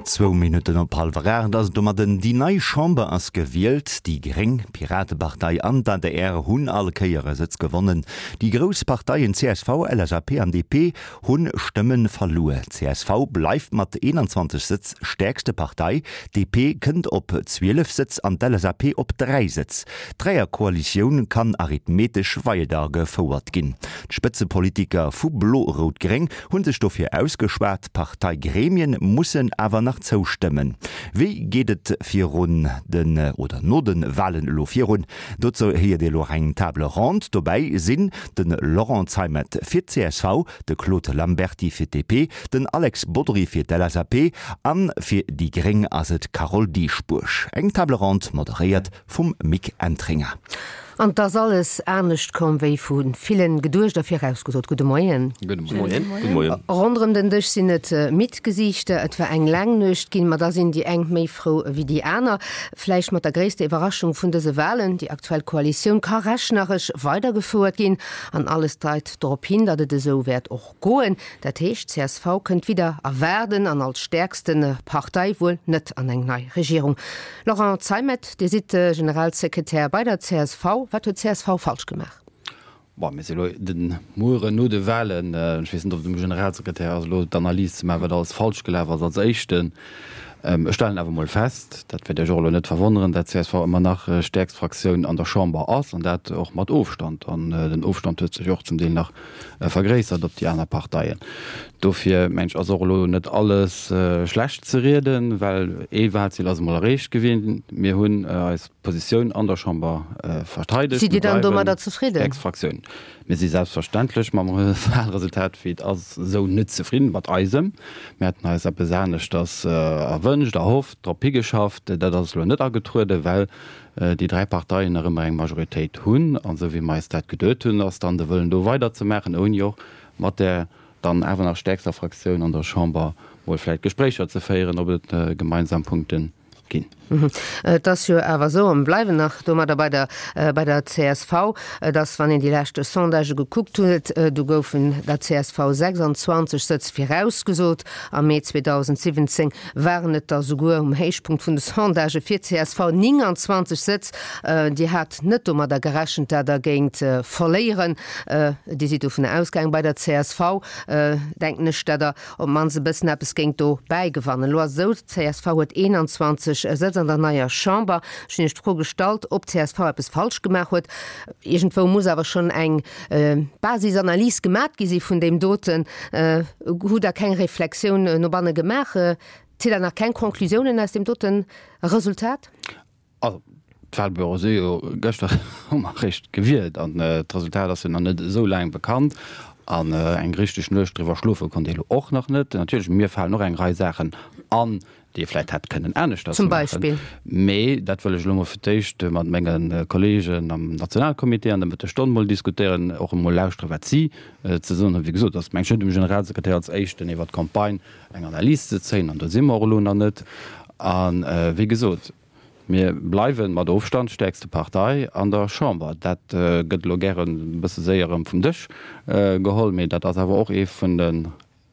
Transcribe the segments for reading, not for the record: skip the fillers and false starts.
Zwou Minutten op hallwer 8 ass et domadden. Déi nei Chamber ass gewielt. Déi gréng, d'Piratepartei an d'ADR hunn all Kéier e Sëtz gewonnen. Déi grouss Parteien csv, LSAP an DP hu Stëmme verluer. Csv bleift mat 21 Sëtz stäerkste Partei, DP kënnt op 12 Sëtz an d'LSAP op 3 Sëtz. D'Dräierkoalitioun kann arithmetesch weidergefouert ginn. D'Spëtzepolitiker vu Blo-Rout-Gréng Hunn sech dofir ausgeschwat, d'Parteigremien mussen awer nach zoustëmmen. Wéi geet et virun den oder no de Walen elo virun? Dozou héiert Dir elo och eng Table ronde. Dobäi sinn de Laurent Zeimet fir d'CSV, de Claude Lamberty fir d'DP, den Alex Bodry fir d'LSAP an fir déi gréng ass et d'Carole Dieschbourg. Eng Table ronde moderéiert vum Mick Entringer. An 't ass alles anescht komm, wéi vu villen geduecht a virausgesot. Gudde Moien. Gudde Moien. Gudde Moien. Ronderëm den Dësch sinn et midd Gesiichter. Et war eng laang Nuecht ginn, ma da sinn déi eng méi frou ewéi déi aner. Vläicht mat der gréisster Iwwerraschung vun dëse Walen, déi aktuell Koalitioun ka rechneresch weidergefouert ginn an alles deit dorop hin, datt et esou wäert och Goen. Dat heescht, csv kënnt widder erwaarden an als stäerkste Partei wuel net an eng nei Regierung. Laurent Zeimet, Dir sidd Generalsekretär bei der csv. Wat huet csv falsch gemaach? Bon, mir si elo de Mueren no de Wahlen. Ech weess net, ob et um Generalsekretär ass, elo d'Analys ze maachen, wat alles falsch gelaf ass als Éischten. Ech stellen awer emol fest, dat wäert Iech och elo net verwonneren, dat csv ëmmer nach stäerkst Fraktioun an der Chamber ass, an dat och mat Ofstand. An den Ofstand huet sech och zum Deel nach vergréissert op déi aner Parteien. Dofir mengen ech, ass och elo net alles schlecht ze rieden, well ee Wahlziel ass emol erreecht gewien. Mir hunn eis Positioun an der Chamber verteidegt. Sidd Dir dann domadder zefridden? Stäerkst Fraktioun. Mir si selbstverständlech mam Wahlresultat, wéi et ass, esou net zefridden, mat eisem. Mir haten eis eppes aneschters erwënscht, erhofft, drop higeschafft. Dat ass elo net agetrueden, well déi 3 Parteien nach ëmmer eng Majoritéit hunn. An esou wéi mer eis dat geduet hunn, ass dann de Wëllen do weiderzemaachen, ouni och mat där dann awer nach stäerkster Fraktioun an der Chamber mol vläicht Gespréicher ze féieren, ob et gemeinsam Punkte ginn. Et ass jo awer esou, a mir bleiwen nach domadder bei der, bei der csv, dass, wann een déi lescht Sondagë gekuckt huet, do goufen der csv 26 Sëtz virausgesot. Am Mee 2017 waren et der souguer um Héichpunkt vun de Sondagë fir csv 29 Sëtz. Dir hat net domadder gerechent, dat Der géingt verléieren. Dir sidd dovunner ausgaangen, bei der csv, denken ech, dat Der op d'mannst e bëssen eppes géingt do bäigewannen. Elo ass et esou, d'CSV huet 21 Sëtz an der neier Chamber. Ech hunn Iech d'Fro gestallt, ob d'CSV eppes falsch gemaach huet. Iergendwou muss awer schonn eng Basisanalys gemat gi si vun deem doten. Hutt Der keng Reflexioun no banne gemaach? Zitt Der nach keng Conclusiounen aus deem dote Resultat? Also, d'Wahlbüroe si jo gëschter hu mer eréischt gewielt an d'Resultat ass jo nach net esou laang bekannt. An eng richteg Nuecht driwwer schlofe konnt ee lo och nach net. Natierlech, mir falen och eng Rei Saachen an, déi ee vläicht hätt kënnen aneschters Zum maachen. Beispill? Mee dat wëll ech elo mol fir d'éischt mat menge Kolleegen am Nationalcomité an der Mëttesstonn mol diskutéieren, och emol lauschteren, wat si ze soen hunn. Wéi gesot, ass meng ech net um Generalsekretär als Éischten iwwer d'Campagne eng Analys ze zéien, an do si mer och elo nach net. A wéi gesot, mir bleiwe mat Ofstand stäerkste Partei an der Chamber. Dat gëtt elo gären e bësse séier erëm vum Dësch geholl, mee dat ass awer och ee vun den,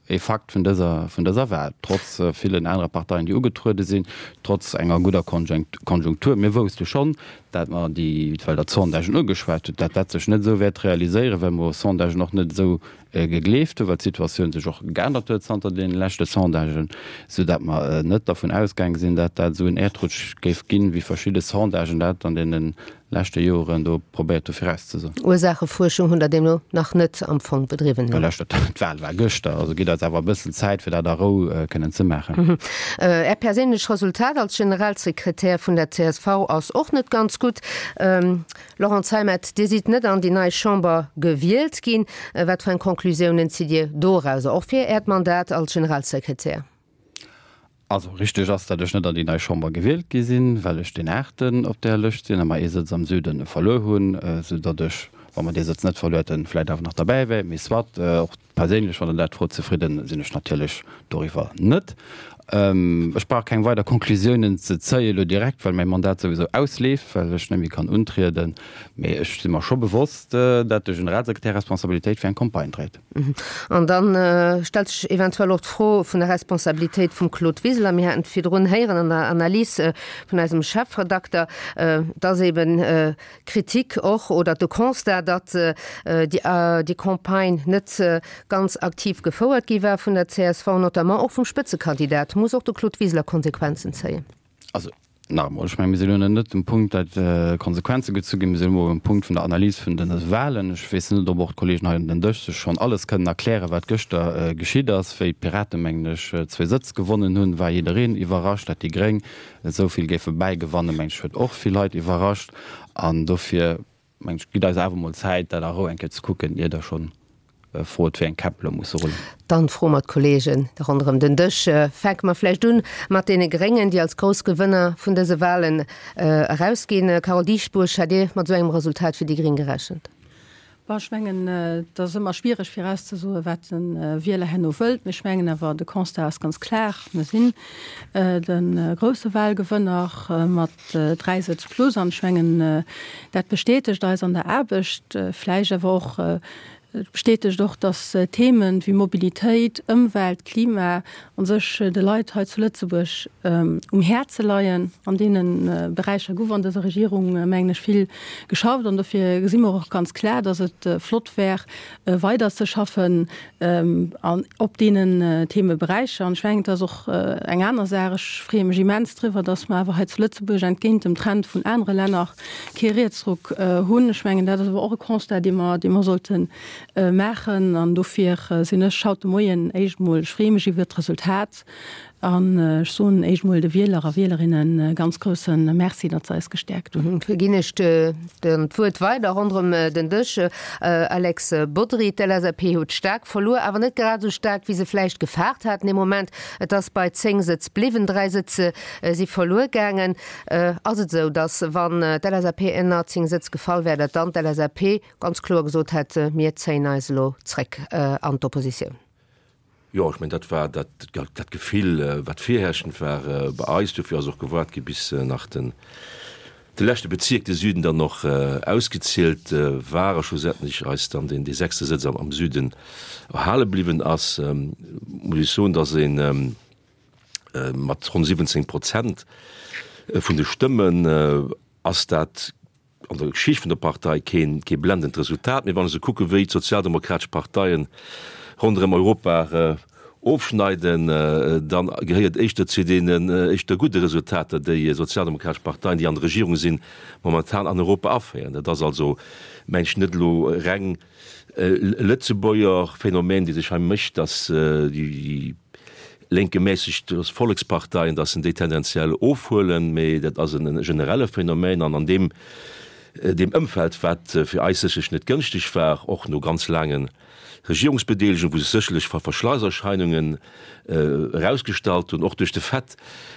ee Fakt vun dëser, vun dëser Wahl, trotz villen anere Parteien, déi ugetruede sinn, trotz enger gudder Konjunktur. Mir wousste schonn, dat mer déi, well Der d'Sondagen ugeschwat hutt, dat dat sech net esou wäert realiséieren, well mer Sondagen och net esou gegleeft hunn, well d'Situatioun sech och geännert huet zanter deene leschte Sondagen, soudatt mer net dervun ausgaange sinn, dat dat esou en Äerdrutsch géif ginn, wéi verschidde Sondagen dat an deene leschte Joren do probéiert hu virauszesoen. Ursaachefuerschung hunn Der deemno nach net am Fong bedriwwen? Well lescht, d'Wahl war gëschter, also gitt eis awer e bëssen Zäit, fir dat a Rou kënnen ze maachen. Är perséinlech Resultat als Generalsekretär vun der csv ass och net ganz gutt. Laurent Zeimet, Dir sidd net an déi nei Chamber gewielt ginn. Wat fir eng Conclusiounen zitt Dir dorauser, och fir Äert Mandat als Generalsekretär? Also richteg ass, datt ech net an déi nei Chamber gewielt gi sinn, well ech deen Aachten op där Lëscht sinn a mer ee Sëtz am Süde verluer hunn, sou datt ech. Wa mer dee Sëtz net verluer hätten, vläit awer nach derbäi wär. Mee soit, och perséinlech, wann Der dat frot, zefridden sinn ech natierlech doriwwer net. Ech brauch keng weider Conclusiounen ze zéie lo direkt, well mäi Mandat souwisou ausleeft, well ech net méi kann untrieden. Mee ech si mer scho bewosst, dat de Generalsekretär Responsabilitéit fir eng Campagne dréit. An da stellt sech eventuell och d'Fro vun der Responsabilitéit vum Claude Wiseler. Mir haten et virdrun héieren an der Analys vun eisem Chefredakter, dass eben d'Kritik och oder de Constat, datt déi Campagne net ganz aktiv gefouert gi war vun der csv, notamment och vum Spëtzekandidat. Muss och de Claude Wiseler Konsequenzen zéien? Also nach emol, ech mengen, mir sinn elo net um Punkt, datt Konsequenze gezu ginn. Mir sinn elo um Punkt vun der Analys vun de Wahlen. Ech weess net, ob och d'Kollegen hei un den Dësch sech schonn alles kënnen erklären, wat gëschter geschitt ass. Wéi d'Piraten, mengen ech, zwee Sëtz gewonnen hunn, war jiddereen iwwerrascht. Datt déi Gréng esou vill géife bäigewannen, mengen ech, huet och vill Leit iwwerrascht. An dofir, mengen ech, gitt eis awer emol Zäit, dat a Rou eng Kéier ze kucken, ier Der schonn frot, wéi eng Käpp elo musse rullen. Dann froe mer d'Kollegen ronderëm den Dësch. Fänke mer vläicht un mat deene Gréngen, déi als grouss Gewënner vun dëse Wahlen erausginn. Carole Dieschbourg, hat Dir mat esou engem Resultat fir déi Gréng gerechent? Bon, ech mengen, et ass ëmmer schwiereg virauszesoen, wat de Wieler herno wëllt. Mee ech mengen awer, de Constat ass ganz klar, Mir sinn de grousse Wahlgewënner mat 3 Sëtz plus. An ech mengen, dat bestätegt eis an der Aarbecht, vläicht awer och, Et bestätegt och, datt Themen wéi Mobilitéit, Ëmwelt, Klima a sech de Leit hei zu Lëtzebuerg um Häerze leien. An deene Beräicher gouf an dëser Regierung, mengen ech, vill geschafft. An dofir gesi mer och ganz klar, datt et flott wär, weider ze schaffen op deenen Themeberäicher. An ech mengen, et ass och eng aner Saach, ech freeë mech immens driwwer, datt mer awer hei zu Lëtzebuerg entgéint dem Trend vun anere Länner kee Rietsruck hunn. Ech mengen, dat ass awer och e Constat, dee mer, dee mer sollte maachen. An dofir sinn ech haut de Moien éischt emol, ech freeë mech iwwert d'Resultat an ech soen éischt emol de Wieler a Wielerinne ganz grousse Merci, datt se eis gestäerkt hunn. Da ginn ech d'Wuert weider ronderëm den Dësch. Alex Bodry, d'LSAP huet staark verluer, awer net grad esou staark, wéi se vläicht gefaart haten ee Moment. Et ass bei 10 Sëtz bliwwen, 3 Sëtz si verluer gaangen. Ass et esou, datt wann d'LSAP ënner 10 Sëtz gefall wär, datt dann d'LSAP ganz kloer gesot hätt, mir zéien eis elo zréck an d'Oppositioun? Jo, ech mengen, dat war dat, dat Gefill, wat virherrschend war bei eis. Dofir ass och gewaart gi bis nach den, de leschte Bezierk, de Süden, dann och ausgezielt war a schlussendlech eis dann deen, dee sechste Sëtz am, am Süden erhale bliwwen ass. Muss ech soen, datt een, Mat ronn 17 Prozent vun de Stëmmen ass dat an der Geschicht vun der Partei keen kee blendend Resultat. Mee wann ech esou kucke wéi d'sozialdemokratesch Parteien ronderëm Europa ofschneiden, da gehéiert éischter zu deenen éischter gudde Resultater déi sozialdemokratesch Parteien, déi an der Regierung sinn, momentan an Europa aféieren. Dat ass also, mengen ech, net elo reng e Lëtzebuerger Phänomen, dee sech hei mécht, datt déi lénk gemässegt Volleksparteien, datt se déi tendenziell ofhuelen, mee dat ass e generelle Phänomen an an deem deem Ëmfeld, wat fir eis sécherlech net gënschteg war, och no ganz laange Regierungsbedeelegung, wou sech sécherlech Verschleißerscheinungen erausgestallt hunn, och duerch de Fait,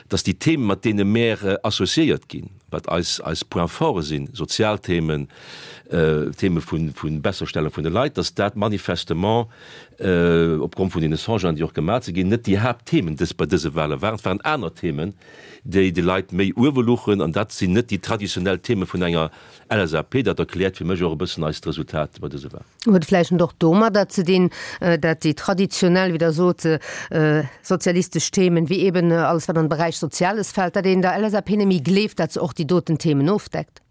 datt déi Themen, mat deene mär associéiert ginn, wat eis eis Points forts sinn, sozial Themen, Theme vu Besserstellung vun de Leit, datt dat manifestement opgrond vun deene Sondagen, déi och gemaach si ginn, net déi Haaptthemen dës bei dëse Wahle waren. Et waren aner Themen, déi de Leit méi uewe luchen, an dat sinn net déi traditionell Theme vun enger LSAP. Dat erkläert fir mech och e bëssen eist Resultat bei dëse Wahl. Huet vläicht och domadder ze dinn, dat déi traditionell, wéi Der sot, sozialistesch Themen, wéi eben alles wat an de Beräich Soziales fält, dat een der LSAP net méi gleeft, dat se och déi doten Themen ofdeckt?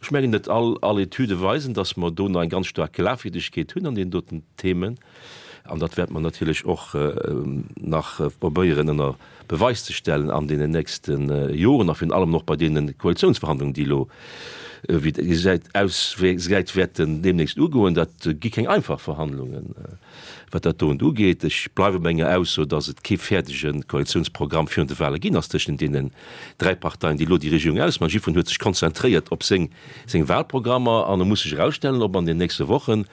Ech mengen net all all Etüde weisen, datt mer do nach eng ganz staark Glafwierdegkeet hunn an deenen doten Themen. An dat wäerte mer natierlech och nach probéieren ënner Beweis ze stellen an deenen nächste Joren a virun allem och bei deene Koalitionsverhandlungen, déi elo, wéi et gesäit, ausgesäit, wäerten deemnächst ugoen. Dat gi keng einfach Verhandlungen, wat dat doen ugeet. Ech bleiwe bei menger Ausso, datt et kee fäerdege Koalitionsprogramm virun de Wahle ginn ass tëschent deenen dräi Parteien, déi elo déi Regierung ausmachen. Jiddwereen huet sech konzentréiert op seng Wahlprogrammer an e muss sech erausstellen, ob an den nächste Wochen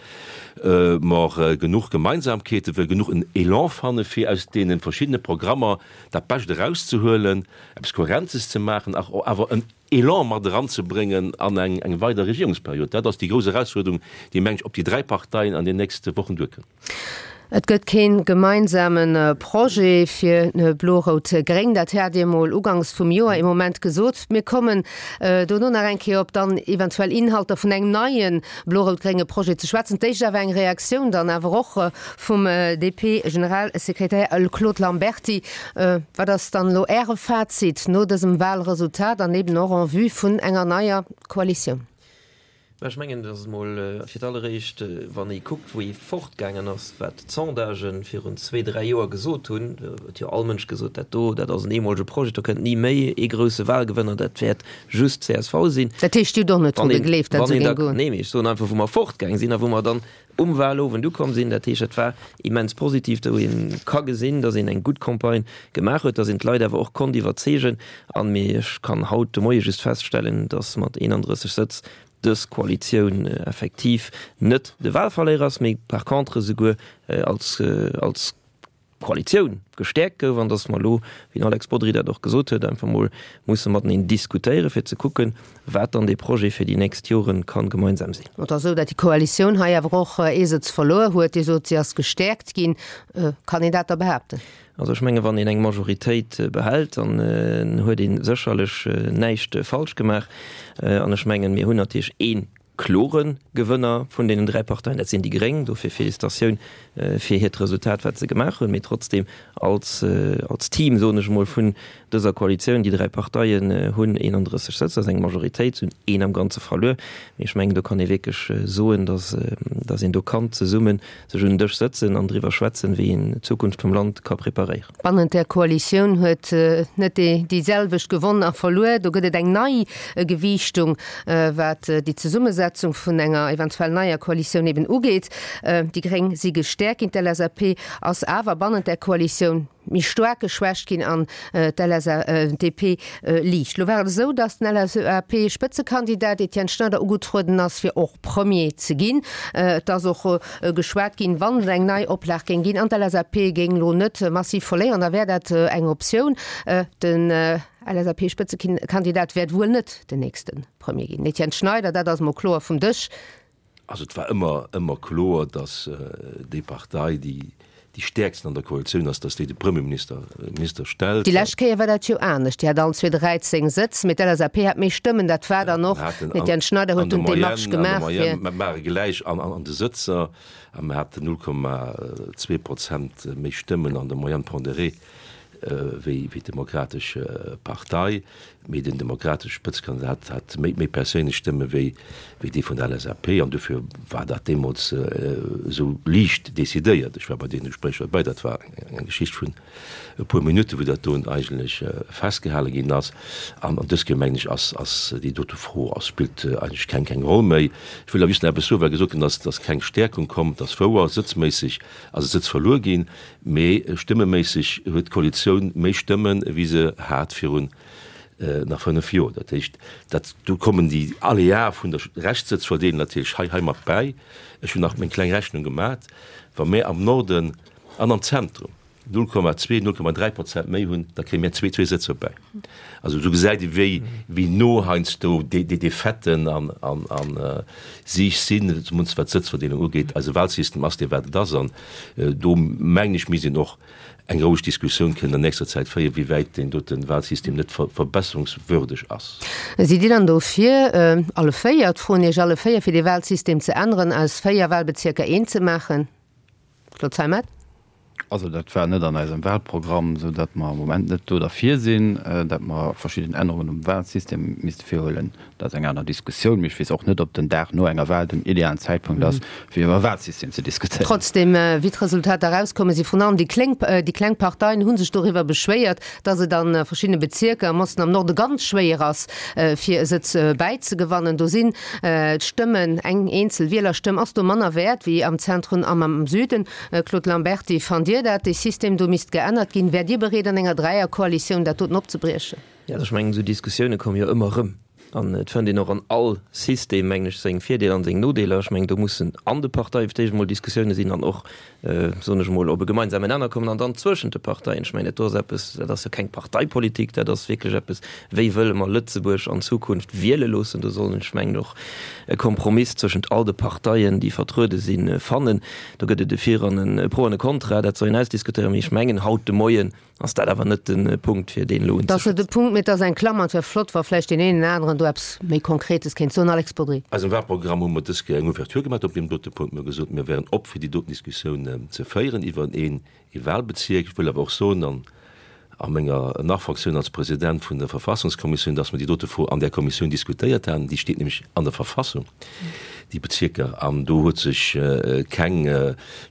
mer genuch Gemeinsamkeeten, wëll genuch en Elan fanne fir aus deene verschiddene Programmer dat Bescht erauszehuelen, eppes Kohärentes ze maachen, awer en. Elan mat eranzebréngen an eng eng weider Regierungsperiod. Dat ass déi grouss Erausfuerderung, déi, meng ech, op déi 3 Parteien an den nächste Wochen duerkënnt. Et gëtt kee gemeinsame Projet fir Blo-Rout-Gréng. Dat hat Dir emol ugangs vum Joer ee Moment gesot. Mir kommen dono nach eng Kéier op dann eventuell Inhalter vun engem neie blo-rout-grénge Projet ze schwätzen. D'éischt awer eng Reaktioun dann awer och vum DP-Generalsekretär Claude Lamberty. Wat ass dann elo Äre Fazit no dësem Wahlresultat an eben och en vue vun enger neier Koalitioun? Mä ech mengen, datt emol fir d'alleréischt, wann ee kuckt, wou ee fortgaangen ass, wat d'Sondagen virun zwee, dräi Joer gesot hunn, huet jo all Mënsch gesot, dat do, dat ass en eemolege Projet, do kënnt ni méi ee grousse Wahlgewënner, dat wäert just csv sinn. Dat heescht, Dir hutt och net dru gegleeft, datt esou géing goen? Nee, mee ech soen einfach, wou mer fortgaang sinn a wou mer dann um Wahlowend ukomm sinn. Dat heescht, dat war immens positiv, wou ee ka gesinn, datt een eng gutt Campagne gemaach huet, datt een d'Leit awer och konnt iwwerzeegen. An, mee ech kann haut de Moie just feststellen, datt mat 31 Sëtz dës Koalitioun effektiv net de Wahlverléierer ass, mee par contre esouguer als, als Koalitioun gestäerkt gouf an datt mer elo, wéi den Alex Bodry dat och gesot huet, einfach mol musse mateneen diskutéieren, fir ze kucken, wat dann dee Projet fir déi nächst Jore ka gemeinsam sinn. Et ass esou, datt déi Koalitioun hei awer och ee Sëtz verluer huet. Dir sot, si ass gestäerkt ginn. Kann een dat da behaapten? Also ech menge wann een eng Majoritéit behält, dann huet ee sécherlech näischt falsch gemaach. An ech mengen, mir hunn natierlech ee klore Gewënner vun deenen 3 Parteien, dat sinn déi Gréng. Dofir Félicitatioun fir hiert Resultat, wat se gemaach hunn. Mee trotzdem als, als Team, soen ech emol, vun dëser Koalitioun, déi 3 Parteien hunn 31 Sëtz, dat ass eng Majoritéit, se hunn een am Ganze verluer. Mee ech mengen, do kann ee wierklech soen, datt, datt een do kann zesummen sech un den Dësch sëtzen an driwwer schwätzen, wéi een d'Zukunft vum Land ka preparéieren. Bannent der Koalitioun huet net déi selwecht gewonn a verluer. Do gëtt et eng nei Gewiichtung, wat déi Zesummesetzung vun enger eventuell neier Koalitioun eben ugeet. Déi Gréng si gestäerkt ginn, d'LSAP ass awer bannent der Koalitioun méi staark geschwächt ginn an d'LSAP liicht. Lo war et esou, datt den LSAP-Spëtzekandidat Etienne Schneider ugetrueden ass, fir och Premier ze ginn. Et ass och geschwat ginn, wann et eng nei Oplag géing ginn an d'LSAP géing lo net massiv verléieren, da wär dat eng Optioun. Den LSAP-Spëtzekandidat wäert wuel net den nächste Premier ginn. Etienne Schneider, Dat ass mol kloer vum Dësch. Also et war ëmmer, ëmmer kloer, datt déi Partei, déi déi stäerksten an der Koalitioun ass, datt déi de Premierminister Minister stellt. Déi lescht Kéier war dat jo anescht, déi hat allen zwee 13 Sëtz, mee d'LSAP hat méi Stëmmen. Dat war dann och, den Etienne Schneider huet dunn d'Demarche gemaach fir. An der Moyenne, mer ware gläich an an de Sëtzer a mer haten 0,2 Prozent méi Stëmmen an der Moyenne pondérée wéi d'Demokratesch Partei. Mee den demokratesche Spëtzekandidat hat méi perséinlech Stëmme wéi dee vun der LSAP an dofir war dat deemools esou liicht decidéiert. Ech war bei deene Gespréicher derbäi, dat war eng Geschicht vun e puer Minutten, wou dat do eigentlech festgehale ginn ass. An dës Kéier, mengen ech, ass déi dote Fro ass spillt eigentlech keng keng Roll méi. Ech wëll awer just nach eppes soen, well gesot ginn ass, dass keng Stäerkung komm. Et ass wouer, sëtzméisseg ass e Sëtz verluer ginn, Mee stëmmeméisseg huet d'Koalitioun méi Stëmmen, wéi se hat virun nach 5 Joer. Dat heescht, dat do kommen déi Aléae vun der Reschtsëtzverdeelung natierlech hei hei mat bäi. Ech hunn nach meng kleng Rechnung gemat, Wa mir am Norden an am Zentrum 0,2, 0,3 Prozent méi hunn, da kréie mir zwee zwee Sëtzer bäi. Also do gesäit ee wéi wéi no heiansdo déi déi Defaitë an an an sich sinn, zumindest wat d'Sëtzverdeelung ugeet. Eise Wahlsystem ass dee wat et ass an do mengen ech misst een och eng roueg Diskussioun kënnen an nächster Zäit féieren, wéi wäit deen dote Wahlsystem net verbesserungswürdeg ass. Sidd Dir dann dofir, alle 4, d'froen Iech alle 4, fir dee Wahlsystem ze änneren, aus 4 Wahlbezierker een ze maachen? Claude Zeimet. Also dat war net an eisem Wahlprogramm, esou datt mer am Moment net do derfir sinn, datt mer verschidden Ännerungen um Wahlsystem misste virhuelen. Dat ass eng aner Diskussioun, mee ech weess och net, ob den Dag no enger Wahl den idealen Zäitpunkt ass, fir iwwer e Wahlsystem ze diskutéieren. Trotzdem, wéi d'Resultater erauskomme si vrun allem déi kléng, déi kleng Parteien hu sech doriwwer beschwéiert, datt et a verschiddene Bezierker am Osten, am Norde ganz schwéier ass, fir e Sëtz bäizegewannen. Do sinn d'Stëmmen, eng eenzel Wielerstëmm ass do manner wäert wéi am Zentrum an am Süden. Claude Lamberty, Fannt Dir dat dee System do misst geännert ginn? Wäert Dir bereet an enger Dräierkoalitioun dat doten opzebriechen? Jo, also ech mengen, esou Diskussioune komme jo ëmmer erëm. An et fënnt een och an all System, mengen ech, seng Virdeeler an seng Nodeeler. Ech mengen, do mussen an de Parteie fir d'éischt emol Diskussioune sinn an och, soen ech emol, op e gemeinsamen Nenner kommen an dann zwëschent de Parteien. Ech mengen, dat do ass eppes, dat ass jo keng Parteipolitik, dat ass wierklech eppes, wéi wëlle mer Lëtzebuerg an Zukunft wiele loossen. Do soll een, ech mengen, och e Kompromiss zwëschent all de Parteien, déi vertruede sinn, fannen. Do gëtt et e Vir an e Pro an e Contra, dat soll een ausdiskutéieren. Mee ech mengen, haut de Moien Ass dat awer net de Punkt, fir deen elo unzeschwätzen. Dat ass net de Punkt, mee et ass eng Klammer. Et wär flott, wa vläicht deen een oder aneren do eppes méi Konkretes kéint soen. Alex Bodry. Eisem Wahlprogramm hu mer dës Kéier eng Ouverture gemaach op deem dote Punkt. Mir hu gesot, mir wären op, fir déi doten Diskussioun ze féieren iwwer een Wahlbezierk. Ech wëll awer och soen, an a menger Nach-Fonctioun als President vun der Verfassungskommissioun, dass mer déi dote Fro an där Kommissioun diskutéiert haten. Déi steet nämlech an der Verfassung, déi Bezierker, an do huet sech keng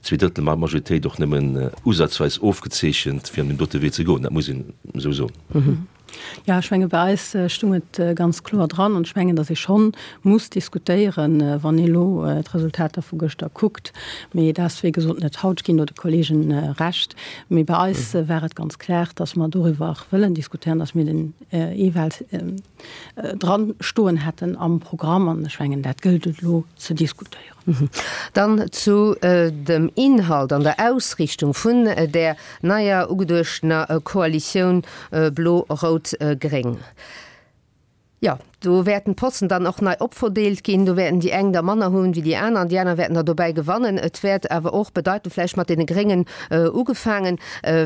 Zweedrëttelmajoritéit och nëmmen usazweis ofgezeechent, fir an deem dote Wee ze goen. Dat muss een esou soen. Jo, ech menge bei eis stung et ganz kloer dran an ech mengen, datt ee schonn muss diskutéieren, wann ee elo d'Resultater vu gëschter kuckt. Mee dat ass wéi gesot net haut. Ech ginn do de Kolleegen Recht. Mee bei eis war et ganz klar, datt mer doriwwer wëllen diskutéieren, datt mir den E-Wahl dran stoen hätten am Programm. An ech mengen, dat gëllt et elo ze diskutéieren. Dann zu dem Inhalt an der Ausrichtung vun där neier ugeduechtener Koalitioun Blo-Rout-Gréng. Jo, do wäerten d'Posten dann och nei opverdeelt ginn. Do wäerten déi eng der manner hunn wéi déi aner an déi aner wäerten der dobäi gewannen. Et wäert awer och bedeiten, vläicht mat deene Gréngen ugefaangen,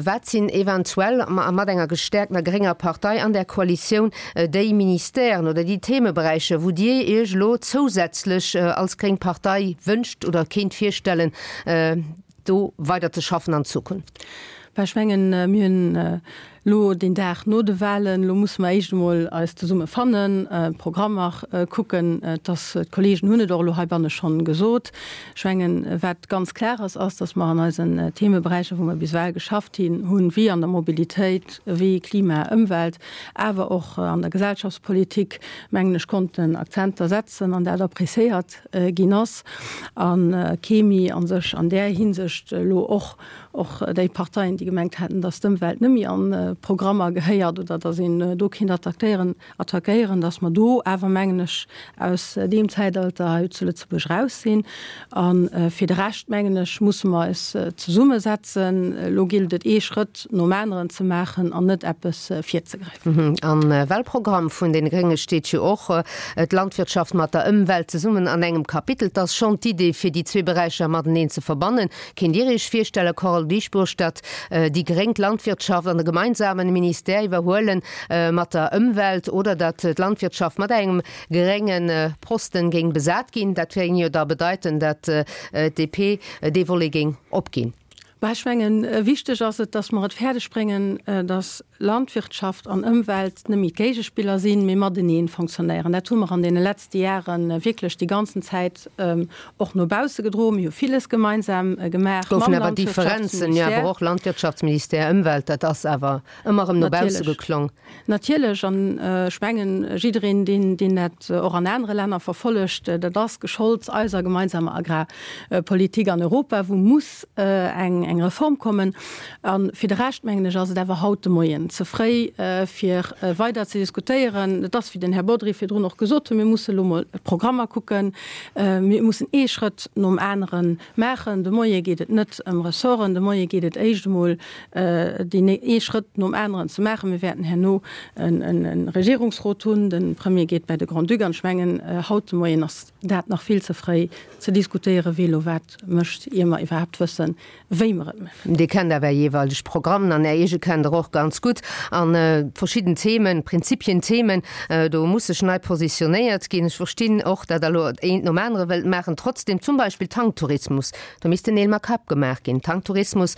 wat sinn eventuell mat enger gestäerkter grénger Partei an där Koalitioun déi Ministèren oder déi Themeberäicher, wou Dir Iech elo zousätzlech als gréng Partei wënscht oder kéint virstellen, do weider ze schaffen an Zukunft? Bah, ech mengen, mir hunn elo deen Dag no de Wahlen, elo musse mer éischt emol eis zesumme fannen, d'Programmer kucken. Et ass, d'Kollegen hunn et och elo heibanne schonn gesot, ech mengen, wat ganz klar ass, ass, datt mer an eisen Themeberäicher, wou mer bis ewell geschafft hunn, wéi an der Mobilitéit, wéi Klima, Ëmwelt, awer och an der Gesellschaftspolitik, mengen ech, konnten Akzenter setzen an dat appréciéiert ginn ass a kee méi a sech an där Hinsicht elo och och déi Parteien, déi gemengt haten, datt d'Ëmwelt net méi an d'Programmer gehéiert oder datt een do kéint attackéieren, attackéieren, datt mer do awer, mengen ech, aus deem Zäitalter hei zu Lëtzebuerg raus sinn. A fir de Rescht, mengen ech, musse mer eis zesummesetzen. Elo gillt et ee Schrëtt nom aneren ze maachen an net eppes virzegräifen. Am Wahlprogramm vun deene Grénge steet jo och, d'Landwirtschaft mat der Ëmwelt zesummen an engem Kapitel. 't ass schonn d'Idee, fir déi zwee Beräicher mateneen ze verbannen. Kéint Dir Iech virstellen, Carole Dieschbourg, datt déi Gréng d'Landwirtschaft an e gemeinsamen Ministère iwwerhuelen mat der Ëmwelt oder datt d'Landwirtschaft mat engem grénge Posten géing besat ginn? Dat géing jo da bedeiten, datt d'DP dee Volet géing opginn. Bah, ech mengen, wichteg ass et, datt mer et fäerdeg bréngen, datt Landwirtschaft an Ëmwelt net méi d'Géigespiller sinn, mee matenee fonctionnéieren. Dat hu mer an deene letzte Jahre wierklech déi ganzen Zäit och no bausse gedroen. Mir hu villes gemeinsam gemaach mam Goufen awer Differenzen, jo, awer och Landwirtschaftsministère, Ëmwelt, dat ass awer ëmmer erëm no bausse geklong. Natierlech, an ech mengen, jiddereen, deen, deen dat och an anere Länner verfollegt, dat ass gescholds eiser gemeinsamer Agrarpolitik an Europa, wou muss eng, eng Reform kommen. A fir de Rescht, mengen ech, ass et awer haut de Moien ze fréi, fir weider ze diskutéieren. Et ass, wéi den Här Bodry virdrun och gesot huet, mir musse elo mol d'Programmer kucken, mir mussen ee Schrëtt nom anere maachen. De Moie geet et net ëm Ressorten, de Moie geet et éischt emol deen ee Schrëtt nom aneren ze maachen. Mir wäerten herno e Regierungsrot hunn, de Premier geet bäi de Grand-Duc an ech mengen, haut de Moien ass dat nach vill ze fréi ze diskutéieren, wie elo wat mécht, ier mer iwwerhaapt wëssen, wéi mer et maachen. Dir kennt awer Är jeeweileg Programmen an Är eege kennt Der och ganz gutt. A verschidden Themen, Prinzipien, Themen, do muss sech nei positionéiert ginn. Ech verstinn och, datt Der elo eent nom anere wëllt maachen. Trotzdem, zum Beispill Tanktourismus, Do missten Neel mat Käpp gemaach ginn. Tanktourismus,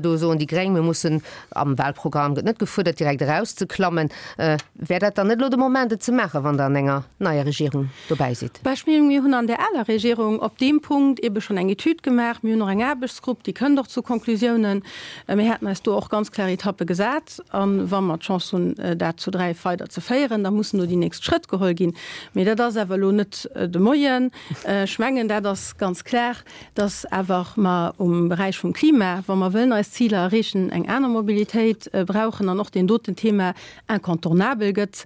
do soen déi Gréng, mir mussen, am Wahlprogramm gëtt net gefuerdert, direkt erauszeklammen. Wär dat dann net elo de Moment, et ze maachen, wann Der an enger neier Regierung dobäi sidd? Bah, ech mengen, mir hunn an där aler Regierung op deem Punkt ebe schonn eng Etüd gemaach. Mir hunn och eng Aarbechtsgrupp, déi kënnt och zu. zu Konklusiounen. Mir haten eis do och ganz klar Etappe gesat. A wa mer d'Chance hunn, dat zu 3 weider ze féieren, da mussen do déi nächst Schrëtt geholl ginn. Mee dat ass awer elo net de Moien. Ech mengen, dat ass ganz klar, dass awer mer um Beräich vum Klima, wa mer wëllen eis Ziler erreechen, eng aner Mobilitéit brauchen an och deen doten Thema incontournabel gëtt.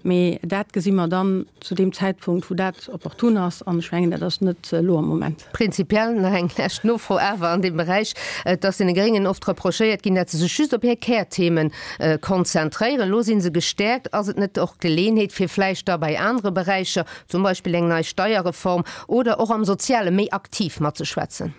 Mee dat gesi mer dann zu deem Zäitpunkt, wou dat opportun ass. An ech mengen, dat ass net elo am Moment. Prinzipiell nach eng lescht Nofro awer an deem Beräich. Et ass deene Gréngen oft reprochéiert ginn, dat se sech just op hir Kärthemen konzentréieren. Elo si se gestäerkt. Ass et net och d'Geleeënheet, fir vläicht da bei anere Beräicher, zum Beispill eng nei Steierreform oder och am Soziale méi aktiv matzeschwätzen?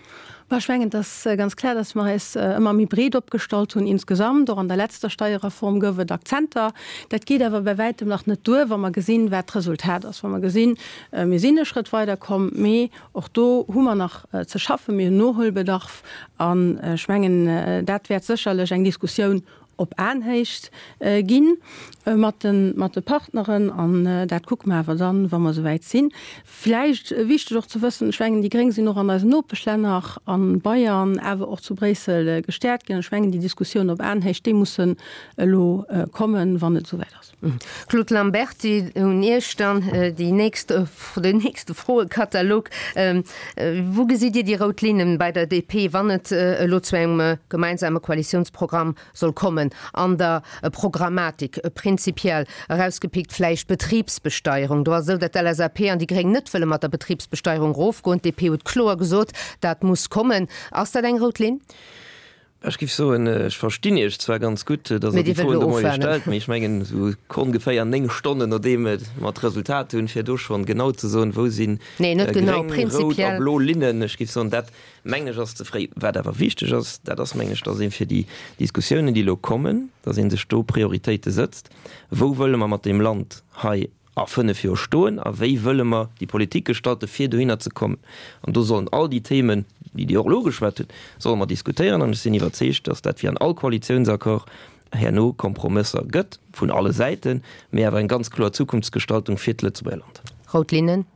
Bon, ech mengen, et ass ganz klar, dass mer eis ëmmer méi breet opgestallt hunn insgesamt. Och an der letzter Steierreform gouf et Akzenter. Dat geet awer bei wäitem nach net duer, wa mer gesinn, wat d'Resultat ass. Wa mer gesinn, mir sinn e Schrëtt weiderkomm, mee och do hu mer nach ze schaffen, mir hunn Nohuelbedarf. An ech mengen, dat wäert sécherlech eng Diskussioun op Aenhéicht gi mat de Partneren. An dat kucke mer awer dann, wa mer esouwäit sinn. Vläicht wichteg och ze wëssen, ech mengen, déi Gréng sinn och an eisen Nopeschlänner, a Bayern, awer och zu Bréissel gestäerkt ginn. An ech mengen, déi Diskussioun op Aenhéicht, déi mussen elo kommen, wann et esouwäit ass. Claude Lamberty, un Iech dann déi nächst, den nächste Froekatalog. Wou gesitt Dir déi rout Linnen bei der DP, wann et elo zu engem gemeinsame Koalitiounsprogramm soll kommen? An der Programmatik prinzipiell erausgepickt vläicht d'Betribsbesteierung. Do ass et esou, datt d'LSAP an déi Gréng net wëlle mat der Betribsbesteierung erofgoen. D'DP huet kloer gesot, dat muss kommen. Ass dat eng rout Linn? Ech géif soen, ech verstinn Iech zwar ganz gutt, datt Der déi Froen de Moie stellt, mee ech mengen, esou ongeféier 9 Stonnen nodeem mer d'Resultat hunn, fir do schonn genau ze soen, wou si gréng, rout a blo Linnen, ech géif soen, dat mengen ech ass ze fréi. Wat awer wichteg ass, dat ass, mengen ech, datt ee fir déi Diskussiounen, déi elo kommen, datt ee sech do Prioritéite sëtzt, Wou wëlle mer mat deem Land hei a 5 Joer stoen a wéi wëlle mer déi Politik gestalten, fir dohinner ze kommen. An do sollen all déi Themen, déi Dir och elo ugeschwat hutt, solle mer diskutéieren. An ech sinn iwwerzeegt, datt dat wéi an all Koalitiounsaccord herno Kompromësser gëtt, vun alle Säiten, mee awer eng ganz kloer Zukunftsgestaltung fir d'Lëtzebuerger Land. Rout Linnen?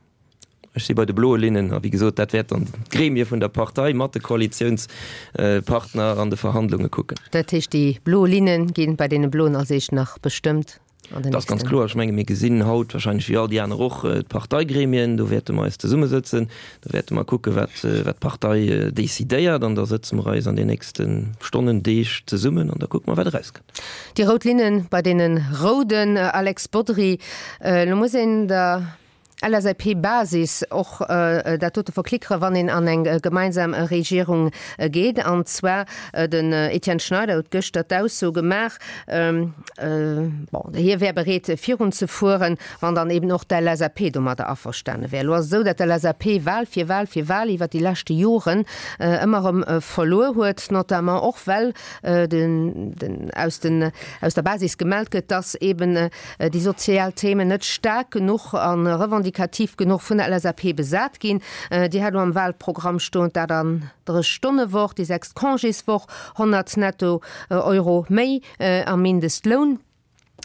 Ech si bei de bloe Linnen. A wéi gesot, dat wäert dann d'Gremie vun der Partei mat de Koalitiounspartner an de Verhandlunge kucken. Dat heescht, déi blo Linne gi bei deene Bloen als éischt nach bestëmmt an den nächsten. Dat ass ganz kloer. Ech menge mir gesinn haut wahrscheinlech wéi all déi aner och d'Parteigremien. Do wäerte mer eis zesummesëtzen. Do wäerte mer kucke wat d'Partei decidéiert. An da sëtze mer eis an den nächste Stonnen, Deeg zesummen an da kucke mer wat erauskënnt. Déi rout Linne bei deene Rouden, Alex Bodry, elo muss een der LSAP-Basis och dat dote verklickere wann een an eng gemeinsam Regierung geet. An zwar den Etienne Schneider huet gëschter d'Ausso gemaach, bon, hie wär bereet virun ze fueren, wann dann eben och d'LSAP domadder averstane wär. Elo ass et esou, datt d'LSAP Wahl fir Wahl fir Wahl iwwer déi leschte Joren ëmmer erëm verluer huet, notamment och well den aus den aus der Basis gemellt gëtt, datt eben déi sozial Themen net staark genuch a revendikativ genuch vun der LSAP besat ginn. Dir hat elo am Wahlprogramm stoen, d'Aterndrech-Stonne-Woch, déi sechst Congéswoch, 100 netto Euro méi am Mindestloun.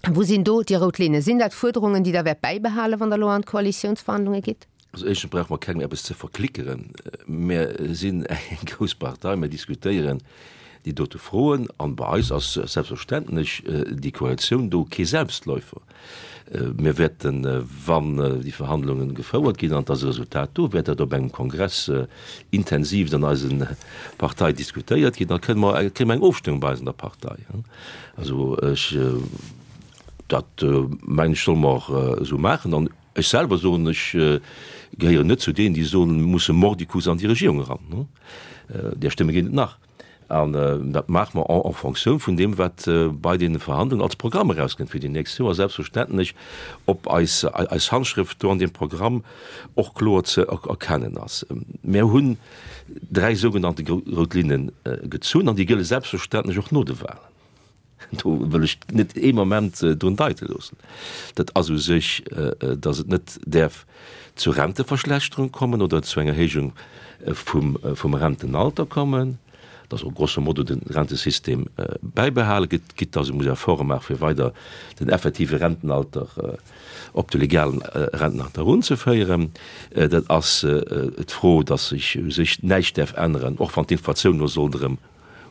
Wou sinn do déi rout Linne? Sinn dat Fuerderungen, déi Der wäert bäibehalen, wann Der elo an d'Koalitiounsverhandlunge gitt? Also éischtens brauche mer kengem eppes ze verklickeren. Mir sinn eng grouss Partei, mir diskutéieren déi dote Froen an bei eis ass selbstverständlech déi Koalitioun do kee Selbstläufer. Mir wäerten, wann déi Verhandlungen gefouert ginn an et ass e Resultat do, wäert dat op engem Kongress intensivst an eise Partei diskutéiert ginn. Da kënne mer, kréie mer eng Ofstëmmung bei eis an der Partei. Also ech, dat mengen ech, solle mer och esou maachen an Ech selwer soen, ech gehéieren net zu deenen, déi soen, mir musse mordicus an déi Regierung eran. Där Stëmme ginn et nach. An dat maache mer en fonction vun deem, wat bei deene Verhandlungen als Programm erauskënnt fir déi nächst Joer, selbstverständlech ob eis Handschrëft do an deem Programm och kloer ze erkennen ass. Mir hunn dräi sougenannte rout Linne gezunn an déi gëlle selbstverständlech och no de Wahlen. Do wëll ech net ee Moment drun deite loossen. Dat ass u sech, datt et net däerf zu Renteverschlechterung kommen oder zu enger Erhéijung vum Rentenalter kommen. Dass och grosso modo de Rentesystem bäibehale gëtt, quitte dass ee muss Efforte maache fir weider den effektive Rentenalter op de legalen Rentenalter erunzeféieren. Dat ass d'Fro, dass sech u sech näischt däerf änneren, och wann d'Inflatioun elo sollt erëm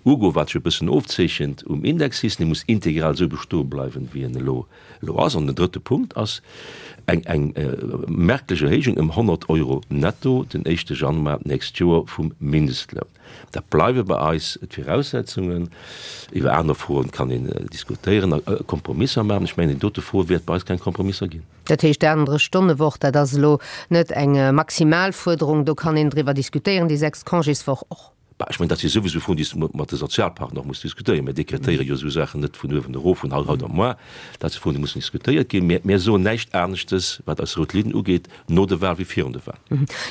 ugoen, wat sech e bëssen ofzeechent um Indexsystem. Dee muss integral esou bestoe bleiwen, wéi en elo elo ass. An den drëtte Punkt ass eng eng merklech Erhéijung ëm 100 Euro netto den éischte Januar d'nächst Joer vum Mindestloun. Dat bleiwe bei eis d'Viraussetzungen. Iwwer aner Froen kann een diskutéieren a Kompromisser maachen. Ech mengen, déi dote Fro wäert bei eis keng Kompromisser ginn. Dat heescht, d'Aanere-Stonne-Woch, dat ass elo net eng Maximalfuerderung, do kann een driwwer diskutéieren, déi sechst Congéswoch och. Bah, ech mengen, dat si souwisou Froen, déi s de mat de Sozialpartner och muss diskutéieren. Mir dekretéiere jo esou Saachen net vun uewen erof, vun haut op moar. Dat si Froen, déi mussen diskutéiert ginn. Mir, mir soen näischt aneschtes, wat eis rout Linn ugeet, no de Wahl wéi virun de Wahl.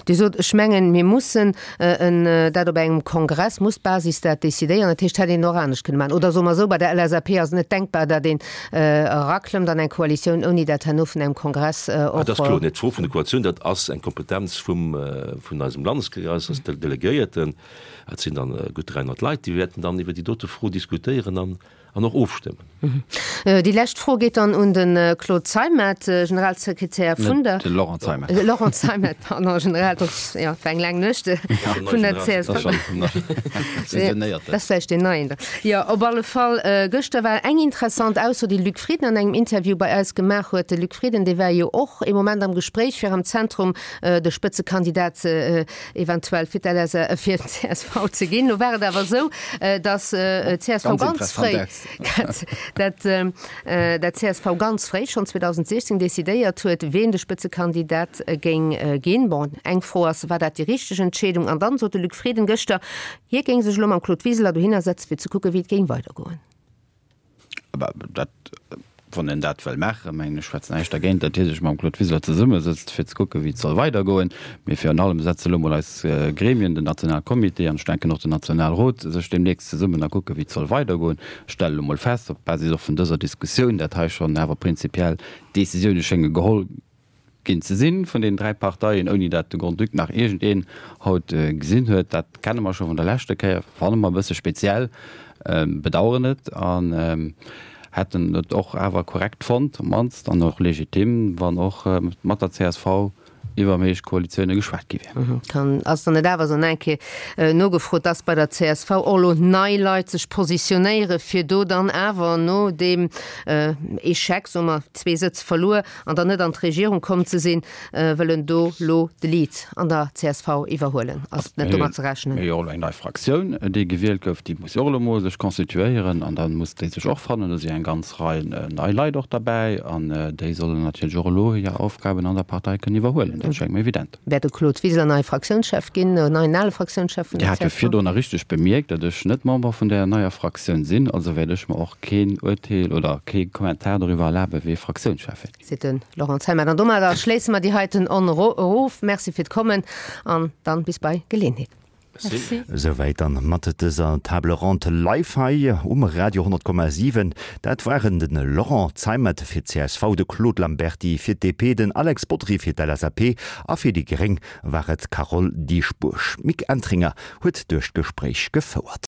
Dir sot, ech mengen, mir mussen en dat op engem Kongress, muss d'Basis dat decidéieren. Dat heescht, hätt een och anescht kënne maachen. Oder soe mer esou, bei der LSAP ass et net denkbar, datt een eraklëmmt an eng Koalitioun, ouni dat herno vun engem Kongress och. Dat ass kloer net. D'Fro vun der Koalitioun, dat ass eng Kompetenz vum, vun eisem Landeskongress, dat ass d'Delegéierten. Dat sinn dann gutt 300 Leit, déi wäerten dann iwwer déi dote Fro diskutéieren an an och ofstëmmen. Déi lescht Fro geet dann un de Claude Zeimet, Generalsekretär vun der. De Laurent Zeimet. Laurent Zeimet, pardon, General, jo, et war eng laang Nuecht, vun der csv. Dat ass vläicht deen Neien da. Jo, op alle Fall, gëschter war eng interessant Ausso, déi de Luc Frieden an engem Interview bei eis gemaach huet. De Luc Frieden, dee war jo och ee Moment am Gespréich, fir am Zentrum de Spëtzekandidat eventuell fir d'LSA, fir d'CSV ze ginn. Lo war et awer esou, datt d'CSV ganz fréi, dat dat d'CSV ganz fréi, schonn 2016, decidéiert huet, ween de Spëtzekandidat géing ginn. Bon, eng Fro ass, war dat déi richteg Entscheedung? An dann sot de Luc Frieden gëschter, hie géing sech elo mam Claude Wiseler dohinner setzen, fir ze kucken, wéi et géing weidergoen. Awer dat, wann en dat wëll maachen, mengen ech, schwätzt näischt dergéint, datt hie sech mam Claude Wiseler zesummesëtzt, fir ze kucken, wéi et soll weidergoen. Mee virun allem setze elo mol eis Gremien, den Nationalcomité an ech denken och den Nationalrot, sech deemnächst zesummen a kucken, wéi et soll weidergoen. Ech stelle elo mol fest, op Basis och vun dëser Diskussioun, dat hei schonn awer prinzipiell Décisioune schénge geholl ginn ze sinn vun deenen 3 Parteien, ouni dat de Grand-Duc nach iergendeen haut gesinn huet. Dat kenne mer scho vun der leschter Kéier, fanne mer e bësse speziell, bedauern et an hätten et och awer korrekt fonnt, op d'mannst, an och legitim, wann och mat der csv iwwer méiglech Koalitioune geschwat gi wier. Kann, ass dann net awer esou eng Kéier nogefrot, dass bei der csv och elo nei Leit sech positionéiere fir do dann awer no deem Echec, soe mer, zwee Sëtz verluer, an dann net an d'Regierung komm ze sinn, wëllen do lo de Lead an der csv iwwerhuelen. Ass net domat ze rechnen? Mir hu jo och elo eng nei Fraktioun, déi gewielt gouf. Déi muss jo och elo mol sech constituéieren an da muss déi sech och fannen. Do si eng ganz Rei nei Leit och derbäi an déi sollen natierlech och elo hir Aufgaben an der Partei kënnen iwwerhuelen. Dat schéngt mir evident. Wäert de Claude Wiseler neie Fraktiounschef ginn, neien ale Fraktiounschef vun der csv? Dir hat jo virdrunner richteg bemierkt, datt ech net Member vun där neier Fraktioun sinn. Also wäert ech mer och keen Urteel oder kee Kommentar doriwwer erlaben, wee Fraktiounschef wäert ginn. Seet de Laurent Zeimet. An domadder schléisse mer déi heiten Onn erof. Merci fir d'Kommen an dann bis bei Geleeënheet. Merci. Esouwäit dann mat dëser Table Ronde live hei um Radio 100,7. Dat waren de Laurent Zeimet fir d'CSV, de Claude Lamberty fir d'DP, den Alex Bodry fir d'LSAP a fir déi gréng war et d'Carole Dieschbourg. D'Mick Entringer huet duerch d'Gespréich gefouert.